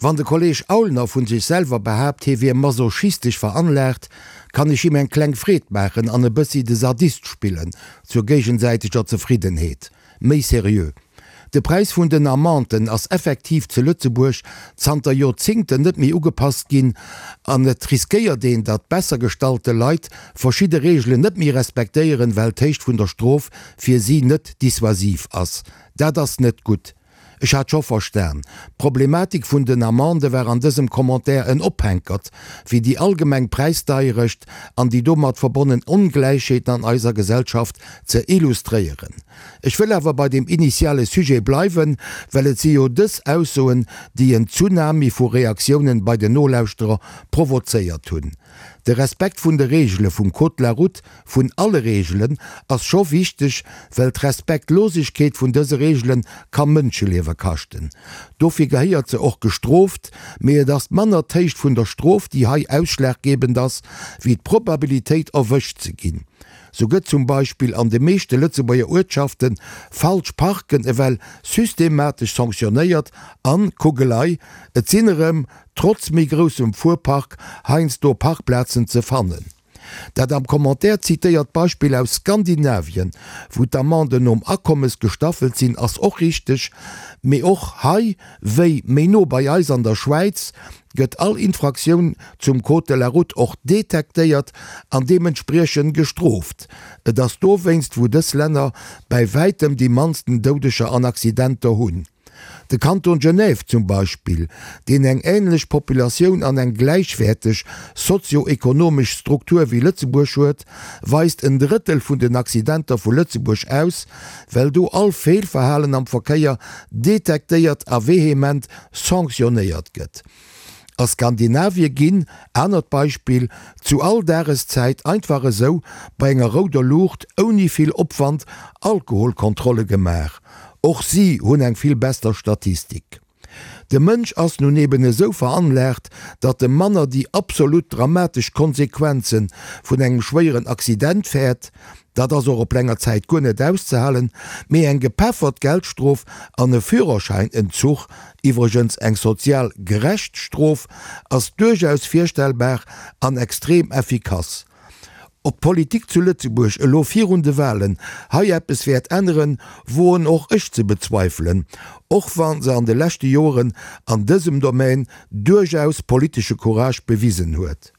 Wann de Kolleg Aulner vun sech selwer behaapt, hie wier masochistesch veranlaagt, kann ech him eng kleng Freed maachen an e bëssi de Sadist spillen, zur géigensäiteger Zefriddenheet. Méi seriö, De Präis vun den Amenden ass effektiv zu Lëtzebuerg zanter Joerzingten net méi ugepasst ginn an et riskéiert een, datt besser gestallte Leit verschidde Reegelen net méi respektéieren, well d'Héicht vun der Strof fir si net dissuasiv ass. Dat ass net gutt. Ech hat scho verstan, d'Problematik vun den Amendë war an dësem Commentaire en Ophänkert, fir déi allgemeng Präisdeierecht an déi domat verbonnen Ongläichheeten an eiser Gesellschaft ze illustréieren. Ech wëll awer bei dem initiale Sujet bleiwen, well et si jo dës Aussoen, déi en Tsunami vu Reaktiounen bei den Nolauschterer provozéiert hunn. De Respekt vun de Reegele vum Code de la route, vun alle Reegelen, ass scho wichteg, well d'Respektlosegkeet vun dëse Reegele ka Mënscheliewe kaschten. Dofir gehéiert se och gestrooft, mee et ass manner d'Héicht vun der Strof, déi hei ausschlaggebend ass, wéi d'Probabilitéit erwëscht ze ginn. Sou gëtt zum Beispill an de meeschte Lëtzebuerger Uertschafte falsch Parken ewell systematesch sanktionéiert an, kuck elei, et sinn erëm trotz méi groussem Fuerpark heiansdo Parkplazen ze fannen. Dat am Commentaire zitéiert Beispill aus Skandinavien, wou d'Amenden nom Akommes gestaffelt sinn, ass och richteg, mee och hei, wéi méi no bei eis an der Schwäiz, gëtt all Infraktioun zum Code de la route och detektéiert an deementspriechend gestrooft. Et ass dowéinst, wou dës Länner bäi wäitem déi mannsten Doudeger an Accidenter hunn. De Kanton Genève zum Beispill, deen eng änlech Populatioun an eng gläichwäerteg sozio-ekonomesch Struktur wéi Lëtzebuerg huet, weist en Drëttel vun den Accidenter vu Lëtzebuerg aus, well do all Feelverhalen am Verkéier detektéiert a vehement sanctionnéiert gëtt. A Skandinavie ginn, anert Beispill, zu all Dageszäit einfach esou bei enger rouder Luucht ouni vill Opwand Alkoholkontrolle gemaach. Och si hunn eng vill besser Statistik. De Mënsch ass nun eben esou veranlaagt, datt e manner déi absolut dramatesch Konsequenze vun engem schwéieren Accident fäert, Dat ass och op länger Zäit guer net auszehalen, mee eng gepeffert Geldstrof an e Führerschäinentzuch, iwwregens eng sozial gerecht Strof, ass duerchaus virstellbar an extrem effikass. Ob d'Politik zu Lëtzebuerg elo virun de Wahlen hei eppes wäert änneren, woen och ech ze bezweifelen, och wa se an de leschte Joren an dësem Domaine duerchaus politesche Courage bewisen huet.